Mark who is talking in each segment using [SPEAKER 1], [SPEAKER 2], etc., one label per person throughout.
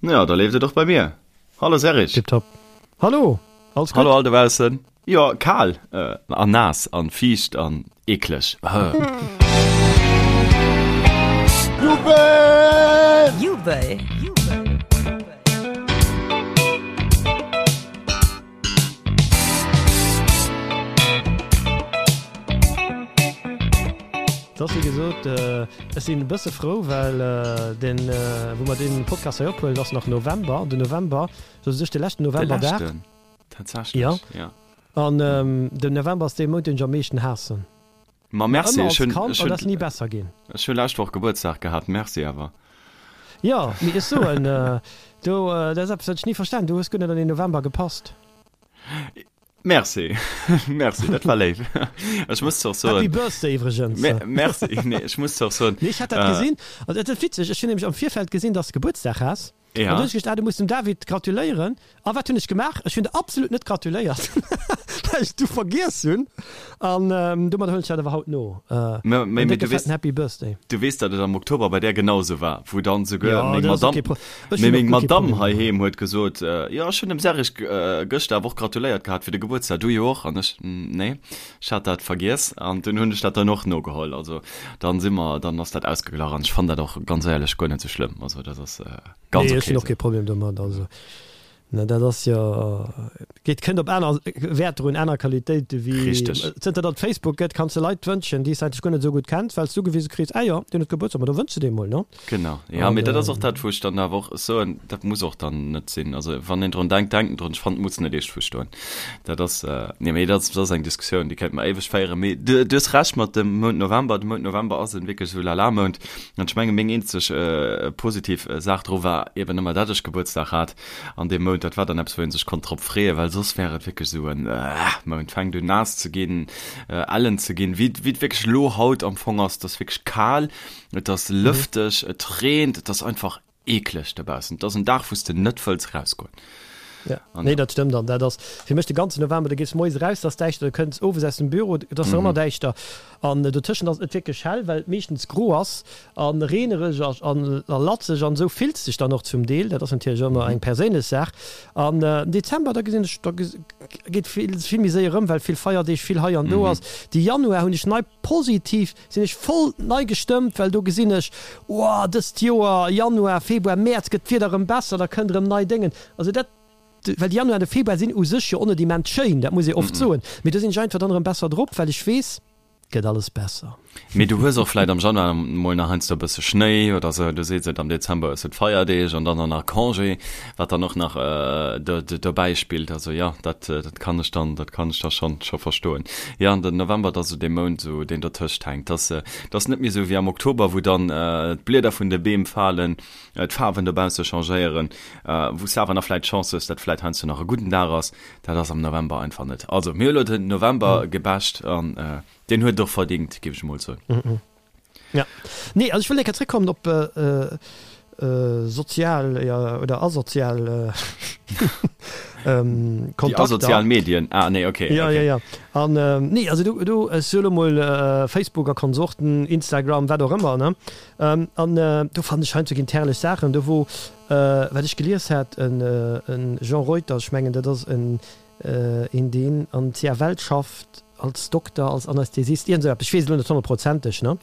[SPEAKER 1] Jo, da leeft et och bei mir. Hallo Serge.
[SPEAKER 2] Tiptop. Hallo,
[SPEAKER 1] alles gutt? Hallo all dobaussen. Jo, kal an naass an fiicht an eekleg.
[SPEAKER 3] Jubel! Jubel!
[SPEAKER 2] Et ass wéi gesot, ech sinn e bësse frou, well deen, wou mer dee Podcast hei ophuelen, ass nach November. An den November, sou u sech de leschten Novemberdag.
[SPEAKER 1] De leschten, tatsächlech, jo.
[SPEAKER 2] An den November ass dee Mount, deen ech am meeschten haassen.
[SPEAKER 1] Ma merci,
[SPEAKER 2] ech hunn, ech hunn, ass ni besser ginn.
[SPEAKER 1] Ech hu lescht Woch Gebuertsdag gehat, merci awer.
[SPEAKER 2] Jo, mee ech soen, do, dat ass eppes, wat ech ni verstan, du hues guer net an den November gepasst.
[SPEAKER 1] Merci, merci, dat war léif. Ech muss zwar soen.
[SPEAKER 2] Happy Birthday iwwregens.
[SPEAKER 1] Merci, nee, ech muss zwar soen.
[SPEAKER 2] Nee, ech hat dat gesinn, an dat ass witzeg, ech hunn nämlech am Virfeld gesinn, dass de Gebuertsdag has.
[SPEAKER 1] Ja.
[SPEAKER 2] An du hunn ech geduecht, ah, du muss dem David gratuléieren. A wat hunn ech gemaach? Ech hunn der absolut net gratuléiert, well ech du vergiess hunn. An domadder huelen ech dat awer haut no.
[SPEAKER 1] Mä,
[SPEAKER 2] mä,
[SPEAKER 1] En décke
[SPEAKER 2] du weess, fetten Happy Birthday.
[SPEAKER 1] du weess, datt et am Oktober bei där genau esou war, wou dann souguer
[SPEAKER 2] Ja,
[SPEAKER 1] meng
[SPEAKER 2] dat ass och
[SPEAKER 1] Madamm,
[SPEAKER 2] kee Pro ech
[SPEAKER 1] mee
[SPEAKER 2] hunn och
[SPEAKER 1] meng
[SPEAKER 2] guer kee
[SPEAKER 1] Madamm
[SPEAKER 2] Problem domadder.
[SPEAKER 1] heiheem huet gesot, Jo, ech hunn dem Serge gëschter awer och gratuléiert gehat fir de Gebuertsdag, du jo och? An ech, Nee. Ech hat dat vergiess an dunn hunn ech dat dann och nogeholl. Also dann si mer, dann ass dat ausgeglach an ech fannen dat och ganz éierlech guer net sou schlëmm. Also dat ass ganz
[SPEAKER 2] Nee,
[SPEAKER 1] ok
[SPEAKER 2] ech hunn och
[SPEAKER 1] sou.
[SPEAKER 2] kee Problem domat. Also ne, dat ass jo, geet, kënnt op aner Wäerter un, aner Qualitéite wéi
[SPEAKER 1] Richteg.
[SPEAKER 2] zënter datt et Facebook gëtt, kanns de Leit wënschen, déi s de eigentlech guer net esou gutt kenns, well s du ugewise kriss, ah jo, deen huet Gebuertsdag, ma da wënschs de deem mol, ne?
[SPEAKER 1] Genau, jo,
[SPEAKER 2] An
[SPEAKER 1] mee dat ass och dat, wou ech dann awer och soen, dat muss och dann net sinn. Also wann een drun denkt, denkt en drun. Ech fannen, et muss net eescht verstoen. Dat ass, nee, mee dat ass, dat ass eng Diskussioun, déi kéinte mer éiweg féieren. Mee du, du hues Recht mat dem Mount November. De Mount November ass en wierklech esou Lala-Mount. An ech menge meng eenzeg positiv Saach dru war eben ëmmer, dat ech Gebuertsdag hat an deem Mount. Dat war dann eppes, wou ee sech konnt drop freeën, well soss wär et wierklech esou en Mount. Fänkt un naass ze ginn, ellen ze ginn, wéi et wierklech elo haut am Fong ass. Et ass wierklech kal. Et ass lëfteg, et reent, et ass einfach eekleg dobaussen. Et ass en Dag, wou s de net wëlls erausgoen.
[SPEAKER 2] Ja, nee, dat stëmmt. An dat ass fir mech de ganzen November, du gees moies eraus, et ass däischter, du kënns owes aus dem Büro, et ass nach ëmmer däischter. An dotëschent ass et net wierklech hell, well et meeschtens gro ass a reenereg a latzeg an esou fills de dech dann och zum Deel. Dat ass natierlech ëmmer eng perséinlech Saach. An den Dezember, da gesinn ech, da geet vill, vill méi séier erëm, well vill Feierdeeg, vill hei an do ass. De Januar hunn ech nei positiv Sinn ech voll nei gestëmmt, well do gesinn ech, oh, dëst Joer, Januar, Februar, Mäerz gëtt d'Wieder erëm besser, da kënnt erëm nei Déngen. Also dat, well de Januar an de Februar sinn u sech jo och net immens schéin, dat muss ee oft soen, mee do sinn ech einfach dann erëm besser drop, well ech weess, et gëtt alles besser.
[SPEAKER 1] Mee du hues och vläit am Januar mol nach heiansdo e bësse Schnéi oder sou, du sees et, am Dezember hues du d'Feierdeeg an dann och nach Congé, wat dann och nach dobäi spillt. Also jo, dat kann ech dann, dat kann ech da schonn scho verstoen. Jo, an den November, dat ass esou dee Mount, esou deen dertëscht hänkt. Dat ass, dat ass net méi esou wéi am Oktober, wou dann d'Blieder vun de Beem falen, d'Faarwen dobausse changéieren, wou s de awer nach vläicht d'Chance hues, datt vläicht heiansdo nach e gudden Dag ass. Dat ass am November einfach net. Also mir hu elo den November gebasht an deen huet et och verdingt, géif ech emol soen.
[SPEAKER 2] Ja. Nee, also ech wëll eng Kéier zréckkommen op sozial oder asozial
[SPEAKER 1] Kontakter. Déi asozial Medien, ah nee, okay.
[SPEAKER 2] Ja, ja, ja. An nee, also do, do, ech soe lo mol Facebook a Konsorten, Instagram, wat och ëmmer, ne? An do fannen ech heiansdo ginn d'herrlech Saachen, do wou, wat ech gelies hat, en Jean Reuter, ech mengen dat ass en een deen an CFL schafft, als Dokter, als Anästhesist, iergend esou eppes, ech weess et elo net honnertprozenteg, ne?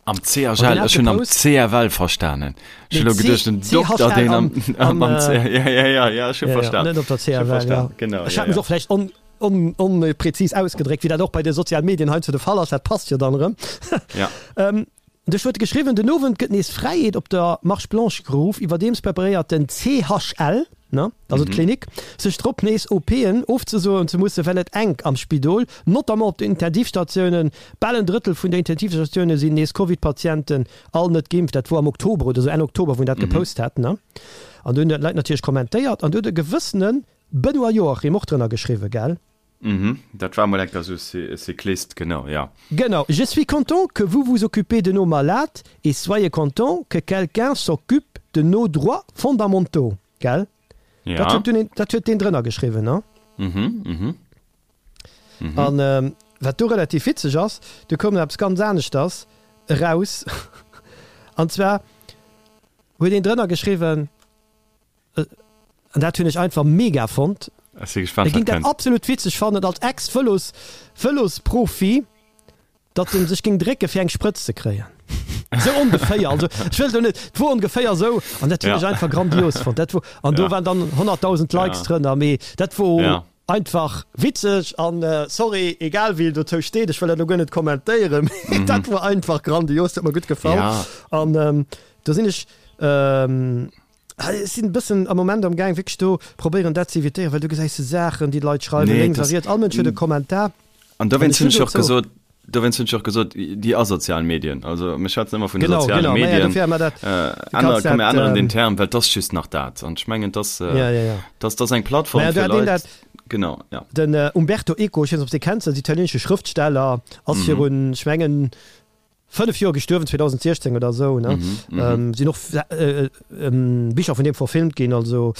[SPEAKER 1] Am CHL, ech hunn am CFL verstanen. Ech hunn elo geduecht, den Dokter, deen am, am, am C, ja, ja, ja, ja, ech hu verstan.
[SPEAKER 2] Net op der CFL, ja.
[SPEAKER 1] Genau,
[SPEAKER 2] Ech hat mech och vläicht on, on, onpräzis ausgedréckt, wéi dat och bei de sozialen Medien heiansdo de Fall ass, dat passt jo dann erëm.
[SPEAKER 1] Ja.
[SPEAKER 2] Duerch huet geschriwwen, Den Owend gëtt nees Fräiheet op der Marche Blanche geruff. Iwwerdeems preparéiert den CHL, ne, also d'Klinik, sech drop, nees OPen ofzesoen ze mussen, well et enk am Spidol, notamment op den Intensivstatiounen. Bal en Drëttel vun der Intensivstatioune sinn nees Covid-Patienten, all net geimpft. Dat wor am Oktober oder sou, Enn Oktober, wou en dat gepost hat, ne. An do hunn d'Leit natierlech kommentéiert an do huet e gewëssene Benoît Joachim och drënner geschriwwen, gell?
[SPEAKER 1] Mhm, dat war mol enker esou e Cyclist, genau, ja.
[SPEAKER 2] Genau, je suis content que vous vous occupez de nos malades et soyez content que quelqu'un s'occupe de nos droits fondamentaux, gell?
[SPEAKER 1] Ja.
[SPEAKER 2] Dat huet dunn een, dat huet deen drënner geschriwwen, ne?
[SPEAKER 1] Mhm, mhm.
[SPEAKER 2] Mhm. An wat do relativ witzeg ass, do koum nach eppes ganz aneschters eraus, an zwar huet een drënner geschriwwen. An dat hunn ech einfach mega fonnt.
[SPEAKER 1] Ech si gespannt,
[SPEAKER 2] E
[SPEAKER 1] wat
[SPEAKER 2] géing dat
[SPEAKER 1] kënnt.
[SPEAKER 2] absolut witzeg fannen als Ex-Vëlos, Vëlosprofi, datt en sech géing drécke fir eng Sprëtz ze kréien. Sou ongeféier, also ech wëll do net, et wor ongeféier sou an dat hunn
[SPEAKER 1] Ja.
[SPEAKER 2] ech einfach grandios fonnt. Dat wor, an do
[SPEAKER 1] Ja.
[SPEAKER 2] waren dann 100.000 Likes
[SPEAKER 1] Ja.
[SPEAKER 2] drënner, mee dat wor
[SPEAKER 1] Ja.
[SPEAKER 2] einfach witzeg an sorry, egal wéi en dozou steet, ech wëll dat elo guer net kommentéieren, mee dat wor einfach grandios, dat huet mer gutt gefall.
[SPEAKER 1] Ja.
[SPEAKER 2] An do sinn ech, Ech sinn e bëssen am Moment am Gaang wierklech do probéieren dat ze evitéieren, well du gesäis Saachen déi d'Leit schreiwen
[SPEAKER 1] Nee,
[SPEAKER 2] lénks a
[SPEAKER 1] das,
[SPEAKER 2] riets, all Mënsch huet e Kommentar.
[SPEAKER 1] an
[SPEAKER 2] An
[SPEAKER 1] dowéinst
[SPEAKER 2] ech
[SPEAKER 1] hunn
[SPEAKER 2] hunn
[SPEAKER 1] ech och
[SPEAKER 2] dozou.
[SPEAKER 1] gesot, dowéinst hunn ech och gesot, déi asozial Medien, also mir schwätzen ëmmer vun de
[SPEAKER 2] Genau,
[SPEAKER 1] soziale
[SPEAKER 2] genau, ma ja,
[SPEAKER 1] Medien,
[SPEAKER 2] dofir hu mer dat,
[SPEAKER 1] äh,
[SPEAKER 2] du
[SPEAKER 1] ännere,
[SPEAKER 2] kanns
[SPEAKER 1] komm mir
[SPEAKER 2] dat,
[SPEAKER 1] änneren den
[SPEAKER 2] ähm,
[SPEAKER 1] Term, well 't ass just nach dat. An ech mengen, 't ass,
[SPEAKER 2] ja, ja, ja.
[SPEAKER 1] 't ass, 't ass eng Plattform
[SPEAKER 2] Mä do
[SPEAKER 1] fir
[SPEAKER 2] hat een
[SPEAKER 1] Leit,
[SPEAKER 2] dat,
[SPEAKER 1] genau, ja.
[SPEAKER 2] den Umberto Eco, ech weess net, ob s de dee kenns, ass italienesche Schrëftsteller, ass virun, ech mengen, 5 Joer gestuerwen, 2016 oder esou, ne? Sinn och Bicher vun deem verfilmt ginn, also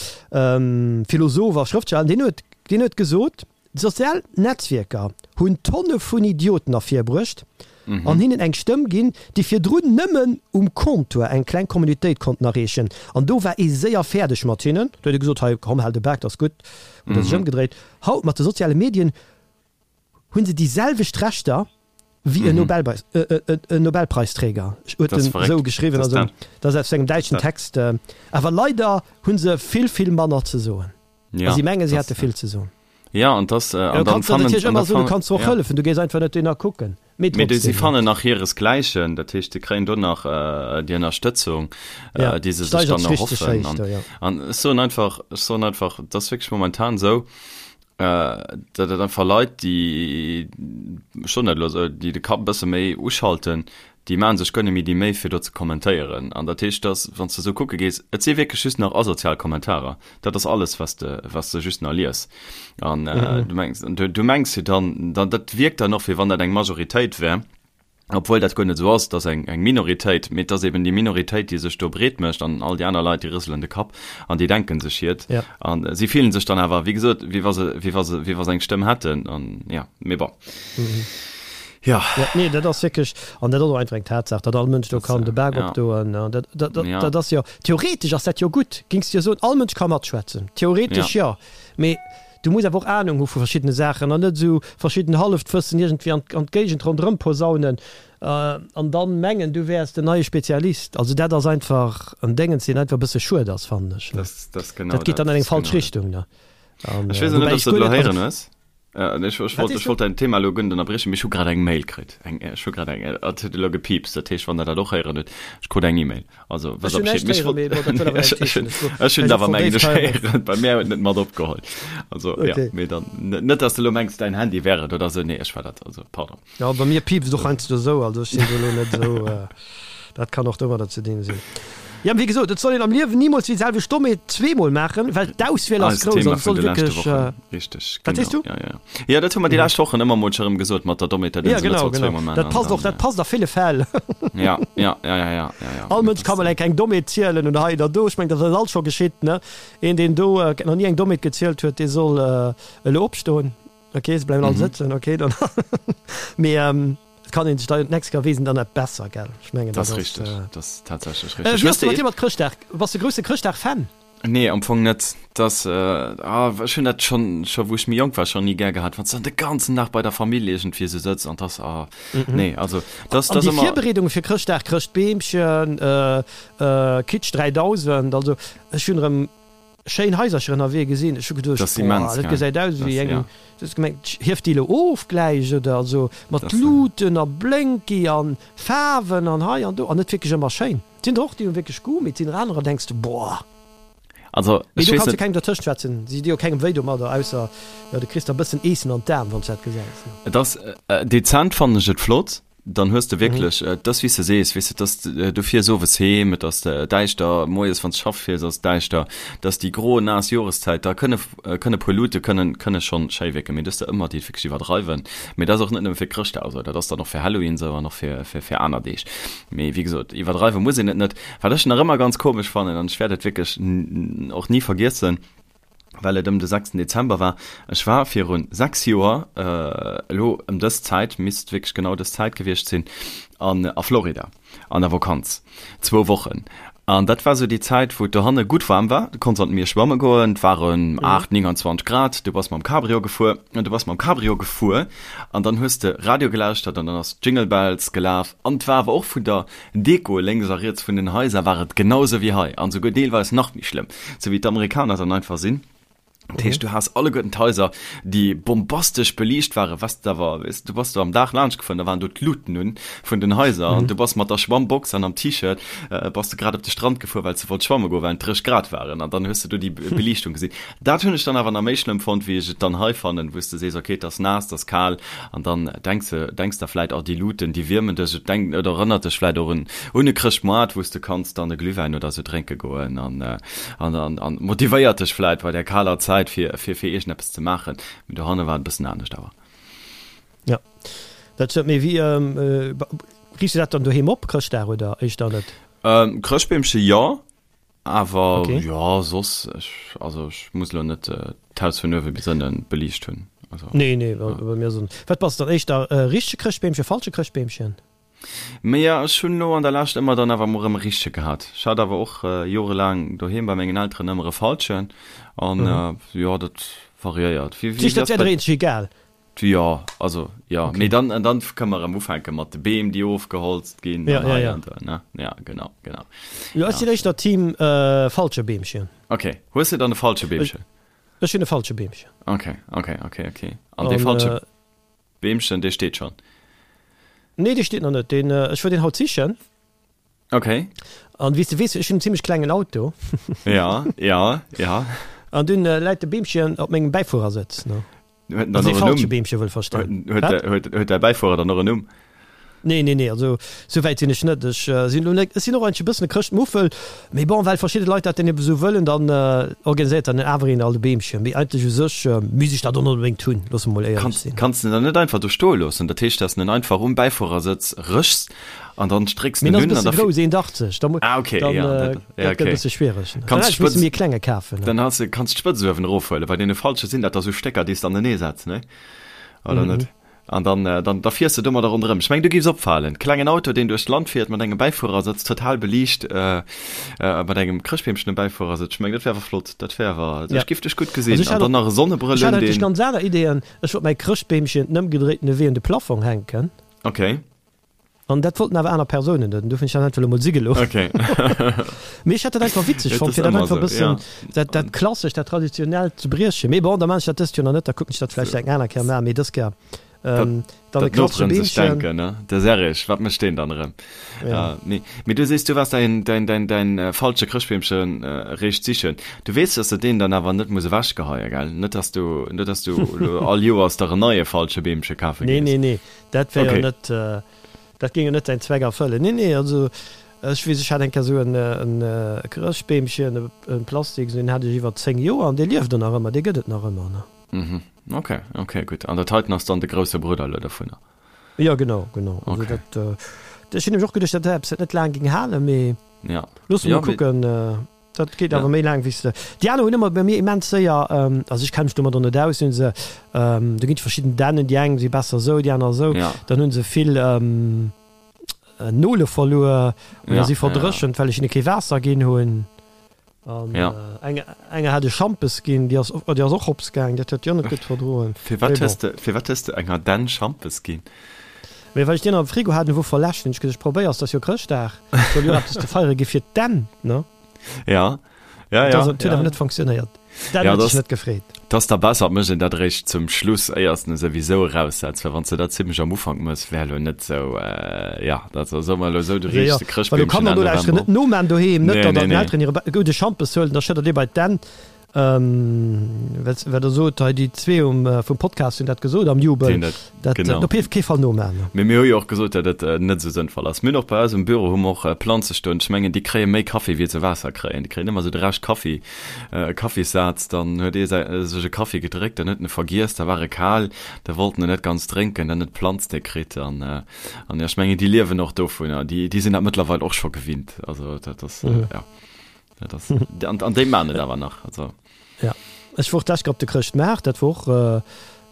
[SPEAKER 2] Philosoph a Schrëftsteller. An deen huet, deen huet gesot, d'sozial Netzwierker hunn Tonne vun Idioten ervirbruecht an hinnen eng Stëmm ginn, déi virdrun nëmmen um Comptoir eng kleng Communautéit konnten erreechen. An do war ee séier fäerdeg mat hinnen. Do huet ee gesot, hei komm, hal de Bak, dat ass gutt, huet e sech ëmgedréit. Haut mat de soziale Medien hunn se déi selwecht Rechter wéi en Nobelpreis, en Nobelpreisträger, huet en esou geschriwwen, also dat ass aus engem däitschen Text. Awer leider hu se vill, vill manner ze soen. A si menge si hätte vill ze soen.
[SPEAKER 1] Jo, an dass,
[SPEAKER 2] an dann fannen, natierlech ëmmer soen, du kanns se och hëllefen, du gees einfach net dohinner kucken.
[SPEAKER 1] Mee trotzdem. Si fannen nach hiresgläichen, dat heescht, se kréien do nach déi Ënnerstëtzung, déi se sech dann erhoffen. An ech soen einfach, ech soen einfach, et ass wierklech momentan esou, datt et einfach Leit, déi, ech soen dat elo esou, déi de Kapp e bësse méi uschalten, déi maache sech guer net méi déi Méi fir do ze kommentéieren. An dat heescht, datt, wann s de esou kucke gees, et si wierklech just nach asozial Kommentarer. Dat ass alles, wat s de, wat s de just nach lies. An du mengs, du mengs jo dann, dann, dat wierkt dann och, wéi wann dat eng Majoritéit wär. Obwuel dat guer net esou ass, et ass eng Minoritéit, mee et ass eben déi Minoritéit, déi sech do breet mécht an all déi aner Leit, déi rëselen de Kapp an déi denke sech hiert. A si fillen sech dann awer, wéi gesot, wéi wa se, wéi wa se, wéi wa se eng Stëmm hätten an jo, mee bon.
[SPEAKER 2] Jo. Jo, nee, dat ass wierklech, an dat ass och einfach eng Tatsaach, datt all Mënsch do kann de Bak opdoen. An dat, dat, dat ass jo, theoretesch ass dat jo gutt, géings de jo soen, all Mënsch ka matschwätzen, theoretesch jo, mee Du muss awer och Ahnung hu vu verschiddene Saachen an net esou verschidden Halleftwëssen iergendwéi an an d'Géigend ronderëm posaunen an dann mengen, du wäers den neie Spezialist. Also dat ass einfach en Déngens, deen einfach e bësse schued ass, fannen ech.
[SPEAKER 1] Das, das genau
[SPEAKER 2] Dat geet dann an eng falsch Richtung, ne?
[SPEAKER 1] An, Ech weess och net, ob s de et elo héieren hues. Ech, ech wollt, ech wollt däin Thema elo guer net ënnerbriechen, mee ech hu grad eng Mail kritt. Eng, ech hu grad eng, et huet elo gepiipst, dat heescht, wann der dat och héieren hutt, ech krut eng E-Mail. Also,
[SPEAKER 2] was Ech hunn näischt héieren, mee bon, dat wëll awer näischt heeschen. Ech
[SPEAKER 1] Ech hunn awer mengen ech héieren, bei mär huet net mat opgeholl. Also, ja,
[SPEAKER 2] Okay.
[SPEAKER 1] mee dann, net dass de elo mengs, däin Handy wär et oder sou, nee, ech war dat, also pardon.
[SPEAKER 2] Jo, bei mir piipst et och heiansdo esou, also ech sinn do elo net esou, dat kann och domadder ze dinn sinn. Jo, wéi gesot, et soll een am Liewen nimools déi selwecht Dommheet zweemol maachen, well d'Auswiel ass
[SPEAKER 1] Eist
[SPEAKER 2] grouss
[SPEAKER 1] Thema
[SPEAKER 2] an et
[SPEAKER 1] vun
[SPEAKER 2] soll
[SPEAKER 1] de leschte
[SPEAKER 2] wierklech,
[SPEAKER 1] Wochen, richteg,
[SPEAKER 2] Wat sees
[SPEAKER 1] genau,
[SPEAKER 2] du?
[SPEAKER 1] ja, ja. Ja, dat hu mer déi lescht Wochen ëmmer mol scho rëm gesot mat der Dommheet, dat een
[SPEAKER 2] Ja,
[SPEAKER 1] se net
[SPEAKER 2] genau,
[SPEAKER 1] soll
[SPEAKER 2] genau.
[SPEAKER 1] zweemol maachen
[SPEAKER 2] Dat
[SPEAKER 1] an
[SPEAKER 2] passt och,
[SPEAKER 1] dann,
[SPEAKER 2] dat passt a ville Fäll.
[SPEAKER 1] ja, ja, ja, ja, ja, ja, ja.
[SPEAKER 2] All Mënsch ka mol eng kleng Dommheet zielen oder hei oder do. Ech mengen, dat ass alt scho geschitt, ne? Een, deen do nach ni eng Dommheet gezielt huet, dee soll elo opstoen. Ok, se bleiwen all sëtzen, ok, dann. Mee et kann een sech da d'nächst Kéier weess een dann net besser, gell? Ech mengen,
[SPEAKER 1] Dat
[SPEAKER 2] dat
[SPEAKER 1] ass
[SPEAKER 2] ass.
[SPEAKER 1] richteg, dat ass tatsächlech richteg.
[SPEAKER 2] Wéi ass et mat dir mat Chrëschtdag? Bass de grousse Chrëschtdag-Fan?
[SPEAKER 1] Nee, am Fong net. Dass, ah, ech hunn dat schonn, scho wou ech méi jonk war, schonn ni gär gehat, wann s de dann de ganzen Dag bei der Famill iergendwéi esou sëtz an dass, ah, nee, also dass,
[SPEAKER 2] An
[SPEAKER 1] dass
[SPEAKER 2] déi
[SPEAKER 1] ëmmer.
[SPEAKER 2] Virbereedunge fir Chrëschtdag, Chrëschtbeemchen, Kitsch 3000, also ech hunn erëm schéin Haisercher ënnerwee gesinn, ech hu geduecht,
[SPEAKER 1] Dat ass immens,
[SPEAKER 2] boah, dat
[SPEAKER 1] gell?
[SPEAKER 2] gesäit aus
[SPEAKER 1] Dat
[SPEAKER 2] wéi
[SPEAKER 1] ass,
[SPEAKER 2] eng,
[SPEAKER 1] ja.
[SPEAKER 2] du hues gemengt, hieft déi elo of gläich oder, also mat
[SPEAKER 1] Dat ass,
[SPEAKER 2] Luuten a Blénki an Faarwen an hei an do an net wierklech ëmmer schéin. Et sinn der och, déi hu wierklech Goût, mee et sinn der anerer, denks de, boah.
[SPEAKER 1] Also,
[SPEAKER 2] Mee
[SPEAKER 1] ech
[SPEAKER 2] do
[SPEAKER 1] weess
[SPEAKER 2] kanns de
[SPEAKER 1] net.
[SPEAKER 2] kengem dertëscht schwätzen, si di jo kengem wéi domadder, ausser, jo, du kriss der e bëssen Eessen an d'Aen, wann s de dat gesäis, ne.
[SPEAKER 1] Et ass, dezent fannen ech et flott, dann hues de wierklech, et ass wéi s de sees, weess de, et ass, du fiers owes heem, et ass däischter, moies wann s de schaffe fiers ass et däischter, et ass déi gro, naass Joreszäit, da kënne, kënne puer Luute kënnen, kënne schonn schéi wierken, mee du hues der ëmmer déi et wierklech iwwerdreiwen. Mee dat ass och net nëmme fir Chrëschtdag esou, dat ass dann och fir Halloween esou an och fir, fir, fir aner Deeg. Mee wéi gesot, iwwerdreiwe muss een et net. Wat ech nach ëmmer ganz komesch fannen, an ech wäert et wierklech och ni vergiessen, well et ëm de sechsten Dezember war, ech war viru 6 Joer, elo ëm dës Zäit, misst wierklech genau dës Zäit gewiescht sinn, an a Florida an der Vakanz, zwou Wochen. An dat war sou déi Zäit, wou et dohanne gutt waarm war. Du konns an d'Mier schwamme goen, et waren 8, 29 Grad, du bass mam Cabrio gefuer an du bass mam Cabrio gefuer an dann hues de Radio gelauschtert an dann ass Jingle Bells gelaf an et war awer och vun der Deko lénks a riets vun den Haiser war et genau sou wéi hei an souguer deelweis nach méi schlëmm, sou wéi d'Amerikaner dann einfach sinn. Dat heescht, du has alleguerten d'Haiser, déi bombastesch beliicht waren, was de awer, weess du bass do am Dag laanscht gefuer, da waren do d'Luuten un vun den Haiser an du bass mat der Schwammbox an am T-Shirt bass de grad op de Strand gefuer, well s de wollt schwamme goen, well et 30 Grad waren an dann hues de do déi Beliichtung gesinn. Dat hunn ech dann awer nach méi schlëmm fonnt, wéi ech et dann hei fannen, wou s de sees, okay, et ass naass, et ass kal an dann denks de, denks der vläit, oh, déi Luuten, déi wiermen dech, et denkt oder erënnert dech vläit och un un e Chrëschtmoart, wou s de kanns dann e Glühwäin oder sou drénke goen an. An, an, an motivéiert dech vläit bei där kaler Zäit fir, fir, fir iergendeppes ze maachen. Mee dohanne war et e bëssen anescht awer.
[SPEAKER 2] Ja, dat stëmmt. Mee wéi, riichts du dat dann doheem op, Chrëschtdag, oder éischter net?
[SPEAKER 1] Ähm, Chrëschtbeemche jo, awer okay. jo, soss, ech, also ech muss elo net d'Haus vun uewe bis ënne beliicht hunn.
[SPEAKER 2] Also, nee, nee, ja. bei mir sinn. Wat bass dann éischter, richtege Chrëschtbeemchen, falsche Chrëschtbeemchen?
[SPEAKER 1] Mee jo, ech hunn elo an der Lescht ëmmer dann awer mol erëm e richtege gehat. Ech hat awer och jorelaang doheem bei mengen Elteren ëmmer e falschen an jo, dat variéiert.
[SPEAKER 2] Wéi, wéi ass dat bei. Dat egal?
[SPEAKER 1] Jo, also jo, mee dann, an dann kënne mer erëm ufänke mat de Beem, déi ofgeholzt ginn an hei an do, ne? Ja, genau, genau.
[SPEAKER 2] Jo, ech sinn éischter Team falsche Beemchen.
[SPEAKER 1] Ok, hues de dann e falsche Beemchen?
[SPEAKER 2] Ech hunn e falsche Beemchen.
[SPEAKER 1] Ok, ok, ok, ok. An dee falsche. Beemchen, dee steet schon.
[SPEAKER 2] Nee, dee steet nach net. Deen, ech wor deen haut sichen.
[SPEAKER 1] Okay.
[SPEAKER 2] An wéi s de weess, ech hunn en zimmlech klengen Auto.
[SPEAKER 1] Ja, ja, ja.
[SPEAKER 2] An dunn läit de Beemchen op mengem Bäifuerersëtz, ne?
[SPEAKER 1] Huet en dann och en Numm?
[SPEAKER 2] Falsche Beemche wëll verstoen.
[SPEAKER 1] Huet, huet, huet däi Bäifuerer dann och en Numm?
[SPEAKER 2] Nee, nee, nee, also sou wäit sinn ech net. Ech sinn elo net, ech sinn och eigentlech e bëssen e Chrëschtmuffel, mee bon, well verschidde Leit dat dann ebe sou wëllen, dann organiséiert dann awer een alt e Beemchen. Mee eigentlech u sech misst ech dat och net onbedéngt hunn, loosse mer mol éierlech
[SPEAKER 1] Kanns, sinn. kanns de en dann net einfach do stoe loossen? Dat heescht, dass de en einfach um Bäifuerersëtz rëschs an dann strécks
[SPEAKER 2] de
[SPEAKER 1] en
[SPEAKER 2] Mee en
[SPEAKER 1] un
[SPEAKER 2] ass e
[SPEAKER 1] an
[SPEAKER 2] bësse
[SPEAKER 1] da.
[SPEAKER 2] grouss, 1,80, da mu,
[SPEAKER 1] Ah, okay,
[SPEAKER 2] dann,
[SPEAKER 1] ja, dat,
[SPEAKER 2] dat
[SPEAKER 1] ja,
[SPEAKER 2] gëtt e
[SPEAKER 1] okay.
[SPEAKER 2] bësse schwiereg, ne? Dann
[SPEAKER 1] Kanns
[SPEAKER 2] hätt ech misse
[SPEAKER 1] d'Spëtz,
[SPEAKER 2] méi e klenge kafen, ne?
[SPEAKER 1] dann has de, kanns d'Spëtz uewen erofhuelen. Bei deene falsche sinn dat da sou Stécker, déi s de anenee setz, ne? Oder net? An dann, dann, da fiers de domadder ronderëm. Ech mengen, du giffs opfalen. Klengen Auto, deen duerch d'Land fiert, mat engem Bäifuerersëtz, total beliicht, mat engem Chrëschtbeemchen um Bäifuerersëtz. Ech mengen, dat wär awer flott. Dat wär awer,
[SPEAKER 2] Ja.
[SPEAKER 1] ech giff dech gutt
[SPEAKER 2] Also
[SPEAKER 1] gesinn.
[SPEAKER 2] ech
[SPEAKER 1] An
[SPEAKER 2] hat
[SPEAKER 1] dann
[SPEAKER 2] och,
[SPEAKER 1] nach e
[SPEAKER 2] ech
[SPEAKER 1] Sonnebrëll
[SPEAKER 2] hat
[SPEAKER 1] un,
[SPEAKER 2] eigentlech
[SPEAKER 1] deen.
[SPEAKER 2] ganz aner Ideeën. Ech wollt mäi Chrëschtbeemchen den ëmgedréitene Wee un de Plafong hänken.
[SPEAKER 1] Okay.
[SPEAKER 2] An dat wollten awer aner Persounen net, an dofir hunn ech dat einfach elo mol si gelooss.
[SPEAKER 1] Okay.
[SPEAKER 2] Mee ech hat dat einfach witzeg
[SPEAKER 1] Et
[SPEAKER 2] fonnt,
[SPEAKER 1] ass
[SPEAKER 2] fir dat
[SPEAKER 1] ëmmer
[SPEAKER 2] einfach e
[SPEAKER 1] esou,
[SPEAKER 2] bëssen,
[SPEAKER 1] ja.
[SPEAKER 2] dat, dat Klassescht, dat Traditionellt ze briechen. Mee bon, da maan ech dat dëst Joer nach net, da kucken ech dat vläicht eng aner Kéier maachen. Mee dës Kéier
[SPEAKER 1] Dat,
[SPEAKER 2] dann e
[SPEAKER 1] dat
[SPEAKER 2] klassesche
[SPEAKER 1] Noperen sech
[SPEAKER 2] Beemchen.
[SPEAKER 1] denken, ne? De Serrig, wat mécht deen dann erëm?
[SPEAKER 2] Ja.
[SPEAKER 1] Ja, nee. Mee du sees, du waars däin, däin, däin, däin äh, falsche Chrëschtbeemchen äh, réischt sichen. Du weess, dass de deen dann awer net muss ewechgeheien, gell? Net, dass du, net, dass du elo all Joers der en neie falsche Beemche kafe
[SPEAKER 2] Nee,
[SPEAKER 1] gees.
[SPEAKER 2] nee, nee, dat wär jo
[SPEAKER 1] Okay.
[SPEAKER 2] net, dat géing jo net säin Zweck erfëllen. Nee, nee, also ech weess, ech hat eng Kéier esou en, en Chrëschtbeemchen, e Plastiks, deen hat ech iwwer 10 Joer an dee lieft och nach ëmmer, dee gëtt et nach ëmmer, ne?
[SPEAKER 1] Mhm. Okay, okay, gutt. An dat heiten ass dann de grousse Brudder elo dovunner?
[SPEAKER 2] Jo, genau, genau. Also
[SPEAKER 1] Okay.
[SPEAKER 2] dat, ech hunn nämlech och geduecht, dat wär eppes, wat net laang géing halen, mee
[SPEAKER 1] Ja.
[SPEAKER 2] loosse mer
[SPEAKER 1] Ja,
[SPEAKER 2] mol
[SPEAKER 1] mee.
[SPEAKER 2] kucken. Dat geet
[SPEAKER 1] Ja.
[SPEAKER 2] awer méi laang wéi s de. Déi aner hunn ëmmer bei mir immens séier, also ech kenne mech domadder net aus, hunn se, do ginn et verschidden Dännen, déi eng si besser esou, déi aner esou,
[SPEAKER 1] Ja.
[SPEAKER 2] dann hunn se vill Nole verluer oder
[SPEAKER 1] Ja,
[SPEAKER 2] si
[SPEAKER 1] ja, ja.
[SPEAKER 2] verdréchent, well ech hinne kee Waasser ginn hunn. An
[SPEAKER 1] Ja.
[SPEAKER 2] eng enger hat ech Schampes ginn, déi ass déi ass och hops gaang, dat huet déi och net gutt verdroen.
[SPEAKER 1] Firwat
[SPEAKER 2] Mee bon.
[SPEAKER 1] hues de, firwat hues de enger Dänn Schampes ginn?
[SPEAKER 2] Mee well ech deen am Frigo hat, en wor verläscht, hunn ech gesot, ech probéiers, 't ass jo Chrëschtdag, soll jo eppes ze feiere gi fir d'Dänn, ne?
[SPEAKER 1] Ja, ja,
[SPEAKER 2] Dat
[SPEAKER 1] ja,
[SPEAKER 2] ass, huet
[SPEAKER 1] ja.
[SPEAKER 2] awer net funktionéiert. D'Dänn
[SPEAKER 1] Ja,
[SPEAKER 2] huet
[SPEAKER 1] dat
[SPEAKER 2] sech net gefreet.
[SPEAKER 1] 't ass da besser, et mécht een dat eréischt zum Schluss, éiers de en souwisou eraussetz, well wann s de dat zimmlech am Ufank mëss, wär elo net sou, ja, dat soe mer elo esou, du
[SPEAKER 2] Jo, jo,
[SPEAKER 1] riichs de
[SPEAKER 2] well do
[SPEAKER 1] Chrëschtbeemchen
[SPEAKER 2] Kanner
[SPEAKER 1] Enn
[SPEAKER 2] nolauschteren,
[SPEAKER 1] November
[SPEAKER 2] net noman doheem, net
[SPEAKER 1] Nee,
[SPEAKER 2] datt
[SPEAKER 1] nee,
[SPEAKER 2] der den
[SPEAKER 1] nee.
[SPEAKER 2] Elteren hire gudde Schampes huelen, da schëddert ee bei d'Dänn. Wat der sot hei, déi zwee um vum Podcast hunn dat gesot am Jubel,
[SPEAKER 1] dat,
[SPEAKER 2] dat
[SPEAKER 1] genau.
[SPEAKER 2] op kee Fall noman.
[SPEAKER 1] Mee mir hu jo och gesot, datt et net esou sënnvoll ass. Mir hunn och bei eis um Büro hu mer och Planze stoen. Ech mengen, déi kréie méi Kaffi wéi se Waasser kréien. Déi kréien ëmmer esou de Rescht Kaffi, e Kaffissaz. Dann huet ee säi sech e Kaffi gedréckt, dann huet en e vergiess, da war e kal, da wollt en en net ganz drénken, dann huet d'Planz dee kritt. An an jo, ech mengen, déi liewen och dovunner. Déi déi sinn dat mëttlerweil och scho gewinnt. Also dat ass, jo. Dat ass, an, an déi maan et awer nach. Also.
[SPEAKER 2] Ja. Ech wor d'lescht Kéier op de Chrëschtmaart, dat wor och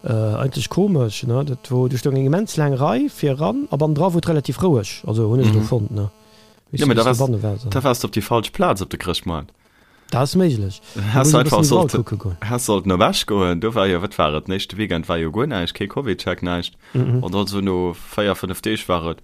[SPEAKER 2] äh, eigentlech komesch, ne? Dat wor, do stoung eng immens laang Rei fir eran a bannendra wor et relativ roueg, also hunn ech elo fonnt, ne?
[SPEAKER 1] Ja, mee da waars, da waars de op déi falsch Plaz op de Chrëschtmoart.
[SPEAKER 2] Dat ass méiglech.
[SPEAKER 1] Häss einfach sollte, häss sollten op Esch goen, do war jo, wat war et, den éischte Weekend war jo guer näischt, kee Covidcheck, näischt. An dann esou no 4, 5 Deeg war et,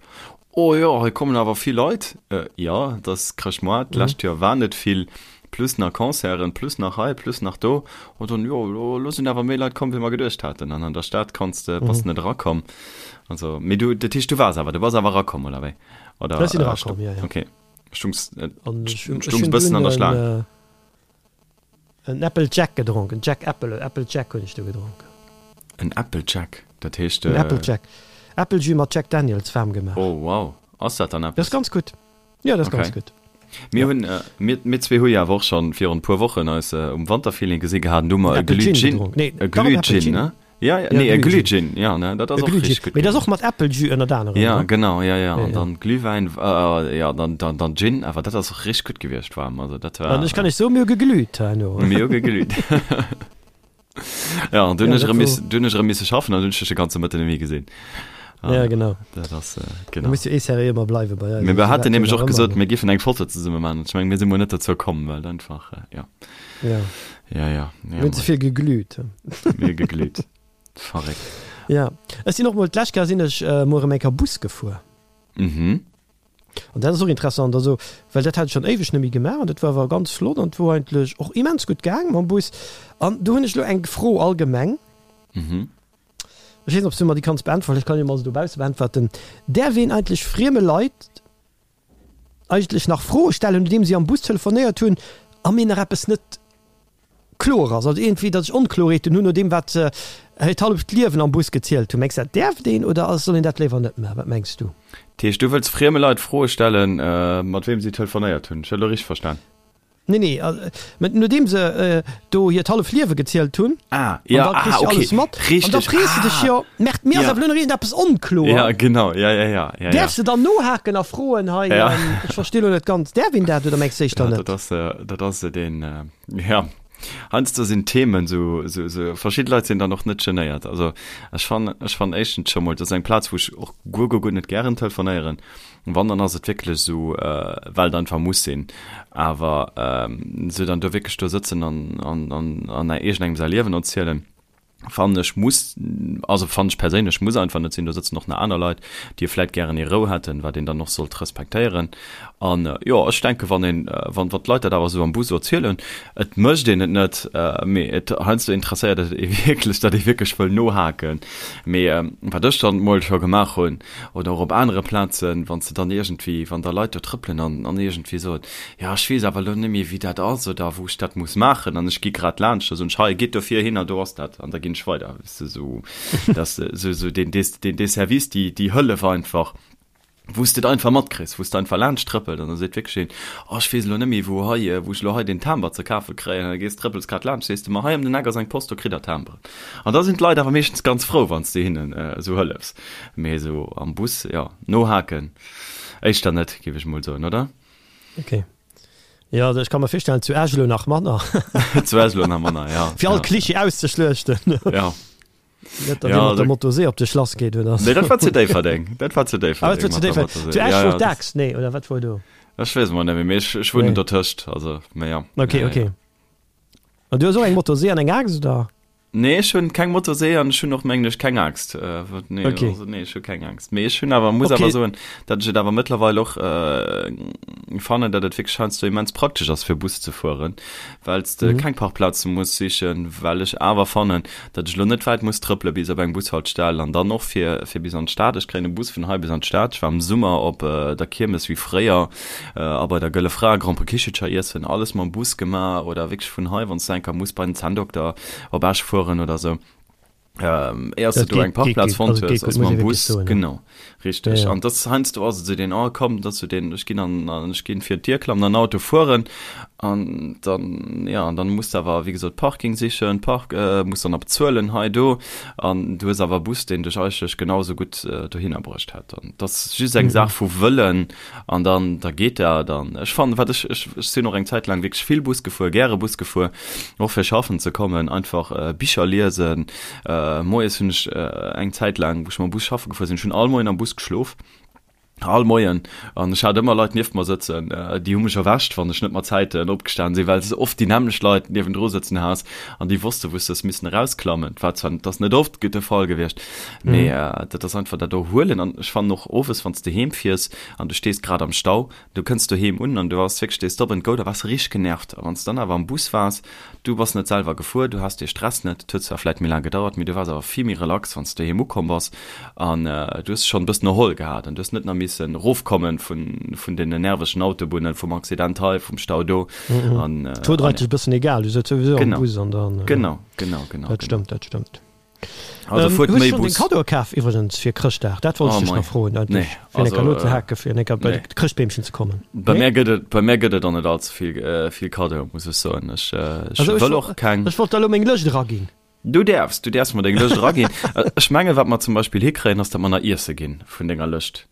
[SPEAKER 1] oh jo, hei kommen awer vill Leit. Jo, et ass Chrëschtmoart, d'lescht Joer war net vill, plus nach Concerten, plus nach hei, plus nach do. An dann, jo, elo sinn awer méi Leit komm, wéi mer geduecht haten. An an der Stad kanns de, bass de net erakomm. Also, mee du, dat heescht, du waars awer, du bass awer erakomm, oder wéi? Oder,
[SPEAKER 2] Ech sinn erakomm, jo, jo.
[SPEAKER 1] Okay. Stungs, äh, stungs bëssen an der Schlaang.
[SPEAKER 2] Äh, en Apple Jack gedronk, en Jack Apple, Apple Jack hunn ech do gedronk.
[SPEAKER 1] En Apple Jack, dat heescht.
[SPEAKER 2] En Apple Jack. Apple Jus mat Jack Daniels waarm gemaach.
[SPEAKER 1] Oh wow, ass dat dann
[SPEAKER 2] eppes? Dat ass ganz gutt. Jo, dat ass ganz gutt.
[SPEAKER 1] Mir hunn, mir, mir zwee hu jo awer och schonn virun e puer Wochen eis um Wanterfeeling gesi gehat an do hu mer e Glühgin, e Glühgin, ne? Ja, ja, nee, e Glühgin, ja, ne, dat ass och
[SPEAKER 2] richtig gutt. Mee dat ass och mat Äppeljus ënnert anerem,
[SPEAKER 1] ne? Ja, genau, ja, ja, an dann Glühwäin, ja, dann, dann, dann Gin, awer dat ass och richtig gutt gewiescht waarm, also dat
[SPEAKER 2] war. An ech kann iech soen, mir hu geglüht herno.
[SPEAKER 1] Mir hu geglüht. Ja, an dunn ech erëm miss, dunn ech erëm misse schaffen an dunn ech dech de ganze Mëtten net méi gesinn.
[SPEAKER 2] Ja, genau.
[SPEAKER 1] Dat ass, genau.
[SPEAKER 2] Du muss jo eh seriö ëmmer bleiwe bei
[SPEAKER 1] eis. Mee mir haten nämlech och gesot, mir giffen eng Foto zesumme maachen. Ech mengen, mir si mol net dozou komm, well einfach, ja.
[SPEAKER 2] Ja.
[SPEAKER 1] Ja, ja.
[SPEAKER 2] Mir hunn ze vill geglüht.
[SPEAKER 1] Mir geglüht. Verréckt.
[SPEAKER 2] Ja. Ech sinn och mol, d'lescht Kéier sinn ech mol erëm eng Kéier Bus gefuer.
[SPEAKER 1] Mhm.
[SPEAKER 2] An dat ass och interessant, also well dat hat ech schonn éiweg net méi gemaach an dat war awer ganz flott an et wor eigentlech och immens gutt gaang mam Bus. An do hunn ech elo eng Fro allgemeng.
[SPEAKER 1] Mhm.
[SPEAKER 2] Ech weess net, ob s du mer déi kanns beäntweren, ech kann jo mol se dobausse beäntwerten. Däerf een eigentlech frieme Leit eigentlech nach Froe stellen, nodeem si am Bus telefonéiert hunn a mir nach eppes net kloer ass, also iergendwéi, datt ech Onkloerheeten hunn no deem, wat se hiert halleft Liewen am Bus gezielt hunn? Mengs de, dat däerft een oder soll een dat léiwer net maachen? Wat mengs du?
[SPEAKER 1] Dat heescht, du wëlls frieme Leit Froe stellen, mat weem si telefonéiert hunn? Ech hunn elo richteg verstan?
[SPEAKER 2] Nee, nee, mä nodeem se do hiert halleft Liewe gezielt hunn,
[SPEAKER 1] ah, ja,
[SPEAKER 2] an da kriss
[SPEAKER 1] ah,
[SPEAKER 2] du
[SPEAKER 1] okay.
[SPEAKER 2] alles mat,
[SPEAKER 1] Richtig.
[SPEAKER 2] an da frees du dech
[SPEAKER 1] ah.
[SPEAKER 2] jo, Merkt, mir ass
[SPEAKER 1] Ja.
[SPEAKER 2] awer elo nach iergendeppes onkloer.
[SPEAKER 1] Ja, genau, ja, ja, ja, ja,
[SPEAKER 2] Däerfs de dann nohaken a froen, hei,
[SPEAKER 1] Ja.
[SPEAKER 2] ähm, ech versti lo net ganz, däerf een dat oder mengs du éischter
[SPEAKER 1] Ja,
[SPEAKER 2] net?
[SPEAKER 1] dat ass, äh, dat ass äh, den, äh, ja, heiansdo sinn Themen sou, sou, sou, verschidde Leit sinn dann och net genéiert. Also ech fannen, ech fannen éischtens scho mol, dat ass eng Plaz, wou ech och guer, guer, guer net gären telefonéieren. Wann, dann ass et wierklech esou, well et einfach muss sinn. Awer esou dann do wierklech do sëtzen an, an, an, an iergendengem säi Liewen erzielen, fannen ech muss, also fannen ech perséinlech muss einfach net sinn. Do sëtzen och nach aner Leit, déi vläit gären hir Rou hätten, wat een dann och sollt respektéieren. An jo, ech denken, wann een, wann, wann d'Leit dat awer esou am Bus erzielen, et mécht een et net, mee et heiansdo interesséiert et ee wierklech, datt ee wierklech wëll nohaken. Mee wat ech dann mol scho gemaach hunn, Oder och op anere Plazen, wann s de dann iergendwéi, wann da Leit do trëppelen an, an iergendwéi soen, jo ech weess awer elo net méi wéi dat ass oder wou ech dat muss maachen an ech gi grad laanscht, da soen ech, hei gitt dofir hin a do ass dat an da ginn ech weider. Weess de, esou, dass de esou, esou deen, deen, dee Service, déi, déi Hëllef einfach, wou s de et einfach matkriss, wou s de einfach laanscht trëppelt an da seet wierklech een, oh ech weess elo net méi wou hei, wou ech elo hei deen Timber ze kafe kréien an da gees, trëppels grad laanscht, sees de, ma hei ëm den Eck ass eng Post, do kritt der Timberen. An da sinn d'Leit awer meeschtens ganz frou, wann s de hinnen esou hëllefs. Mee esou am Bus, jo, nohaken éischter net, géif ech mol soen, oder?
[SPEAKER 2] Ok. Jo, also ech ka mer virstellen, zu Esch elo nach manner.
[SPEAKER 1] Zu Esch elo nach manner, ja.
[SPEAKER 2] Fir all Klischee auszeschluechten.
[SPEAKER 1] Ja.
[SPEAKER 2] Net, datt ee mat der Motosee op de Schlass geet, oder?
[SPEAKER 1] Nee, dat war zu Déifferdeng. Dat war zu
[SPEAKER 2] Déifferdeng. Ah, dat war zu Déifferdeng. Zu Esch wor d'Axt, nee, oder wat wor do?
[SPEAKER 1] Ech weess emol net méi, mee ech wunnen dotëscht, also, mee ja.
[SPEAKER 2] Ok, ok. An du hues och eng Motosee an eng Aaxt, oder?
[SPEAKER 1] Nee, ech hunn keng Motosee an ech hunn och mengen ech keng Aaxt. Nee,
[SPEAKER 2] okay.
[SPEAKER 1] also, nee, ech hu keng Aaxt. Mee ech hunn awer, muss
[SPEAKER 2] okay.
[SPEAKER 1] awer soen, datt ech et awer mëttlerweil och äh, fannen, datt et wierklech heiansdo immens praktesch ass fir Bus ze fueren, well s de
[SPEAKER 2] mhm.
[SPEAKER 1] keng Parkplaze muss sichen, well ech awer fannen, datt ech lo net wäit muss trëppele bis op eng Bushaltestell an dann och fir, fir bis an d'Stad. Ech kréien e Bus vun hei bis an d'Stad. Ech war am Summer op äh, der Kiermes wéi fréier A bei der Gëlle Fra Grand Prix Kichelcher iessen, alles mam Bus gemaach oder wierklech vun hei, wann s du enker muss bei den Zänndokter op Esch fueren oder sou, éiers du
[SPEAKER 2] Dat
[SPEAKER 1] do eng
[SPEAKER 2] geet, geet
[SPEAKER 1] Parkplaz
[SPEAKER 2] gutt,
[SPEAKER 1] fonnt
[SPEAKER 2] also
[SPEAKER 1] hues,
[SPEAKER 2] geet gutt,
[SPEAKER 1] ass
[SPEAKER 2] muss
[SPEAKER 1] mam
[SPEAKER 2] ee wierklech
[SPEAKER 1] Bus,
[SPEAKER 2] soen, ja.
[SPEAKER 1] genau,
[SPEAKER 2] Ja,
[SPEAKER 1] richteg.
[SPEAKER 2] ja.
[SPEAKER 1] An dass heiansdo ass et esou deen, oh komm, dat ass sou deen, ech ginn an, an ech ginn fir d'Dier klammen an den Auto fueren an dann, ja, an dann muss de awer, wéi gesot, Parking sichen, Park, muss dann nach bezuelen hei, do an du hues awer e Bus, deen dech eigentlech genau esou gutt dohinner bruecht hätt. An dat ass just eng Saach vu Wëllen, An dann, da geet dat. An ech fannen, wat ech, ech, ech sinn och eng Zäit laang wierklech vill Bus gefuer, gäre Bus gefuer, och fir schaffen ze kommen, einfach Bicher liesen. Moies hunn ech eng Zäit laang, wou ech mam Bus schaffe gefuer sinn, ech hunn all Moien am Bus geschlof. All Moien. An ech hat ëmmer Leit nieft mer sëtzen, déi hu mech erwächt, wann ech net mat Zäiten opgestan sinn, well s de oft déi nämmlecht Leit niewendru sëtzen has an déi wosste wou s de hues missen erausklammen. War zwar, dat ass net oft de Fall gewiescht, mee dat ass einfach dat Erhuelen. An ech fannen och owes, wann s de heem fiers an du stees grad am Stau, Du kënns doheem un an du waars wierklech dee Stop and Go, da waars de richteg genervt. A wann s de dann awer am Bus waars, du bass net selwer gefuer, du has dee Stress net, et huet zwar vläit méi laang gedauert, mee du waars awer vill méi relax, wann s de doheem ukomm bass an du hues dech schonn e bëssen erholl gehat an du hues net nach missen erofkommen vun, vun deenen nervegen Autobunnen, vum Accident hei, vum Stau do.
[SPEAKER 2] An, Et wor der eigentlech e bëssen egal, du souz souwisou am Bus an
[SPEAKER 1] dann. Genau, genau, genau.
[SPEAKER 2] Dat stëmmt, dat stëmmt. Also ähm, fuert méi Bus. Kado kaf iwwergens fir Chrëschtdag dat wollt oh, ich nach froen nee, fir also, no ze äh, hake fir enker bei nee. Chrëschtbeemchen ze kommen.
[SPEAKER 1] Bei nee? mir gëtt et bei mir gëtt et an net allze vill äh, vill Kado muss ech soen. Ech, äh, ech
[SPEAKER 2] also, wëll och keng. Ech wollt da lo meng Lëscht eraginn.
[SPEAKER 1] Du däerfs, du däerfs mer deng Lëscht eraginn. Äh, ech menge wat mer zum Beispill hikréien ass, dat mer nach iesse ginn vun denger Lëscht.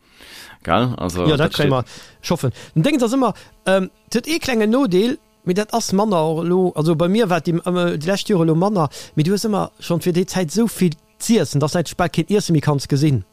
[SPEAKER 1] Gell?
[SPEAKER 2] Also, ja, dat kréie mer. Ech hoffen. Den Déngens ass ëmmer, ähm, et huet ee klengen Nodeel, Mee dat ass manner och elo, also bei mir war et déi déi lescht Jore elo manner, mee du hues ëmmer schonn fir déi Zäit esou vill z'iessen, dass de eigentlech bal keen Iesse méi kanns gesinn.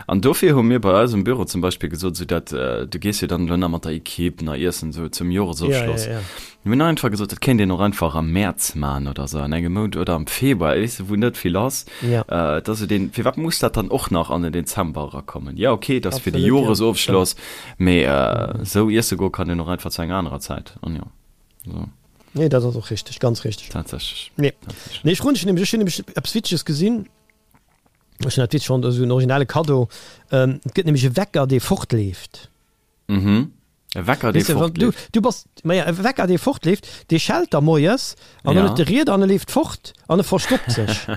[SPEAKER 1] An dofir hu mir bei eis um Büro zum Beispill gesot, esou dat, du gees jo dann elo nach mat der Equipe nach iessen esou zum Joresofschloss. Ja, ja, ja. Mir hunn einfach gesot, dat kéint een och einfach am Mäerz maachen oder esou, an engem Mount oder am Februar, weess de, wou net vill ass. Ja. Et ass esou deen, firwat muss dat dann och nach an den Dezember erakommen? Jo, okay, et ass fir de Absolut, ja. Joresofschloss, Mee esou iesse goe kann een och einfach zu enger anerer Zäit. An jo,
[SPEAKER 2] esou. Nee, dat ass och richteg, ganz richteg.
[SPEAKER 1] Tatsächlech.
[SPEAKER 2] Nee. Tatsächlech. Nee, ech froen dech nämlech, ech hunn nämlech eppes Witzeges gesinn. Ech hunn dat witzeg fonnt, esou en originelle Kaddo. Et gëtt nämlech e Wecker, dee fortleeft.
[SPEAKER 1] Mhm. E Wecker, dee
[SPEAKER 2] Weess de, wann du, fortleeft. du bass, maja, e Wecker, dee fortleeft, dee schellt da moies an dann Ja. huet de Rieder an e leeft fort an e verstoppt sech.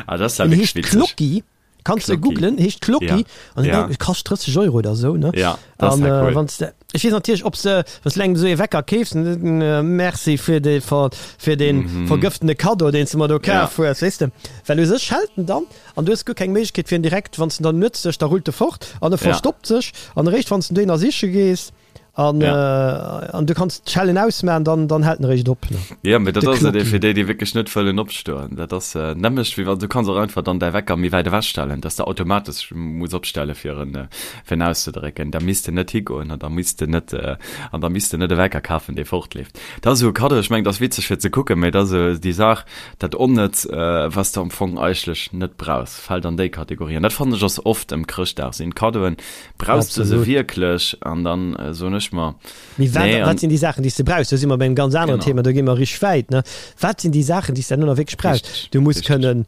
[SPEAKER 1] Ah, dat ass ja En
[SPEAKER 2] wierklech heescht witzeg. Clocky. Kanns de googlen, heescht Clocky an ja. kascht 30 Euro oder sou ne.
[SPEAKER 1] Ja, an,
[SPEAKER 2] äh, cool. wanns de, ech weess natierlech ob se wanns du engem esou ee Wecker keefs, äh, merci fir de fir den mm -hmm. vergëftene Kaddo deen s de mer do kaf ja. hues, weess de. Well u sech schellt en dann an du hues guer keng Méiglechkeet fir en direkt wanns en dann nuets sech da rullt e fort an e verstoppt ja. sech an eréischt wanns du den dohinner siche gees An, ja. äh, an du kannst d'Schellen ausmachen, dann, dann hält en eréischt op.
[SPEAKER 1] Ne? Ja, mee dat ass et fir déi, déi wierklech net wëllen opstoen. Dat ass äh, nämlech wéi wann du kanns och einfach dann däi Wecker méi wäit ewech stellen, dass de automatesch muss opstelle fir en, äh, fir en auszedrécken. Da misst de net higoen an da misst de net äh, an da misst de net e Wecker kafen, dee fortleeft. Dat ass esou e Kaddo, ech mengen, dat ass witzeg fir ze kucken, mee dat ass esou déi Saach, dat Onnëtz, äh, was de am Fong eigentlech net brauchs, fält an déi Kategorie. An dat fannen ech ass oft ëm Chrëschtdag sinn Kaddoen, Brauchs de se wierklech? An dann soen ech mer,
[SPEAKER 2] Mee wat, nee. Wat sinn déi Saachen, déi s de brauchs? Do si mer bei engem ganz aneren Thema, do gi mer richteg wäit, ne? Wat sinn déi Saachen, déi s de herno nach wierklech brauchs? Richtig, Du muss kënnen,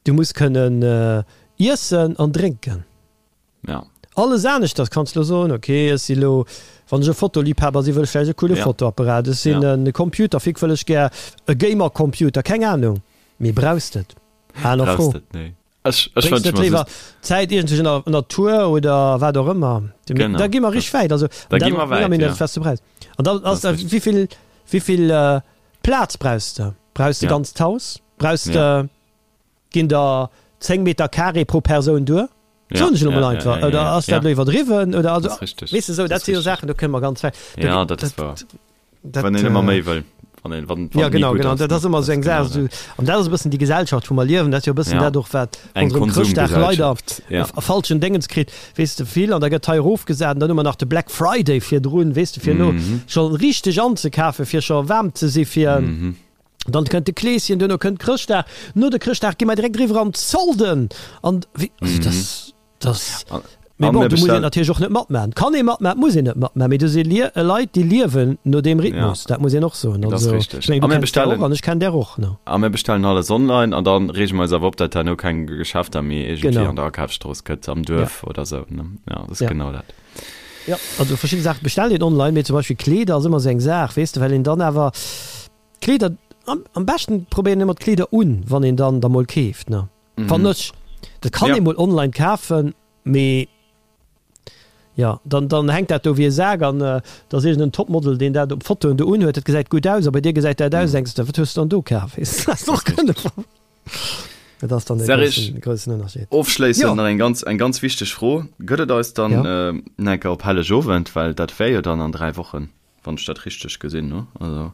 [SPEAKER 2] du muss kënnen iessen an drénken.
[SPEAKER 1] Ja.
[SPEAKER 2] Alles aneschters kanns de elo soen, okay, ech si lo, wann ech e Fotoliebhaber sinn, wëll ech vläicht e coole Fotoapparat, ech sinn e Computerfreak, wëll ech gär e Gamercomputer, keng Anung. Mee brauchs de et? Aner Fro.
[SPEAKER 1] Brauchs de et? Nee.
[SPEAKER 2] Ech, ech wënsche mer just. Zäit iergendwéi an der Natur oder wat och ëmmer.
[SPEAKER 1] Genau.
[SPEAKER 2] Da gi mer richteg wäit.
[SPEAKER 1] Also, da gi mer wäit,
[SPEAKER 2] ja. Was du brauchst. An dann ass da, wéi vill, wéi vill äh, Plaz brauchs de? Brauchs de ja. ganz d'Haus? Brauchs de, ja. ginn der 10 Meter Carré pro Persoun duer? Ja, Soen ech elo mol einfach. Ja, ja, ja, oder ass dat ja. elo iwwerdriwwen? Oder also,
[SPEAKER 1] weess
[SPEAKER 2] de, sou, dat si jo Saachen, do kënne mer ganz
[SPEAKER 1] wäit. Ja, dat ass wahr. Dat, wann een ëmmer méi wëll. Wann een,
[SPEAKER 2] wann, wann ja, genau, genau. Dat ass ëmmer sou eng Saach. Sou, an dat ass e bëssen déi Gesellschaft, wou mer liewen. Dat ass jo e bëssen ja. dat och, wat
[SPEAKER 1] ronderëm
[SPEAKER 2] Chrëschtdag leider ja. e falschen Déngens kritt. Weess de, vill, an da gëtt hei erofgesat, an dann hu mer nach de Black Friday virdrun, weess de, fir elo mm -hmm. scho richteg anzekafen, fir scho waarm ze si fir. Mm -hmm. Dann kënnt de Kleeschen, duerno kënnt Chrëschtdag. No de Chrëschtdag gi mer direkt eriwwer an d'Solden. An wéi, also mm -hmm. das, Das, mee bon, do muss een natierlech och net matmachen. Kann ee matmachen, muss een net matmachen, mee do si Leit, déi liewen no deem Rhythmus, dat muss een och soen.
[SPEAKER 1] Also, ech mengen, du kenns der
[SPEAKER 2] och an ech kenn där och, ne?
[SPEAKER 1] A mir bestellen alles online an da reege mer eis awer op, datt herno keng Geschäfter méi iergendwéi an der Akafsstrooss gëtt, am Duerf oder esou, ne? Jo, dat ass genau dat.
[SPEAKER 2] Jo, also verschidde Saache bestellt een online, mee zum Beispill Kleeder ass ëmmer esou eng Saach, weess de, well een dann awer Kleeder, am beschten probéiert een ëmmer d'Kleeder un, wann een dann der mol keeft, ne? Fannen ech. Dat kann ee mol online kafen, mee jo, dann, dann hänkt dat do wéi e Sak an da ass iergend en Topmodel, deen dat op Fotoen do unhuet, dat gesäit gutt aus a bei dir gesäit dat aus, denks de, wat hues de dann do kaf? Weess de, dat och kënne. Dat ass dann de
[SPEAKER 1] groussen, groussen Ënnerscheed. Ofschléissend nach eng ganz, eng ganz wichteg Fro, Gëtt et eis dann nach eng Kéier op Hellegowend, well dat wär jo dann an 3 Wochen? Wann ech dat richteg gesinn hu.
[SPEAKER 2] Also,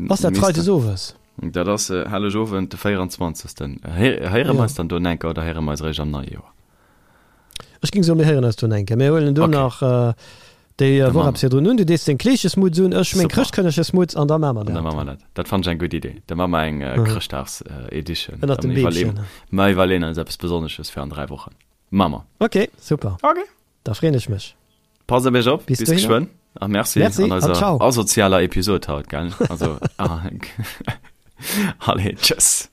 [SPEAKER 2] Ass dat Freides owes?
[SPEAKER 1] Dat ass Hellegowend, de 24. Héiere mer eis dann do enker oder héiere mer eis eréischt am neie Joer?
[SPEAKER 2] Ech géing soen, mir héieren eis do nach eng Kéier. Mir huelen do nach déi Woch eppes virdrun un. Du dees deng Kleeschesmutz un, ech meng Chrëschtkënnegesmutz an da maache mer
[SPEAKER 1] dat. An da maache mer dat. Dat fannen ech eng gutt Idee. Da maache mer eng Chrëschtdags-Edition.
[SPEAKER 2] Ënnert dem Beemchen.
[SPEAKER 1] Mer iwwerleeën eis eppes Besonnesches fir an 3 Wochen. Maache mer.
[SPEAKER 2] Ok, super.
[SPEAKER 1] Ok.
[SPEAKER 2] Da freeën ech mech.
[SPEAKER 1] Passt op iech op. Bis geschwënn. A merci an eiser asozialer Episod haut, gell? Also, allez, tschëss.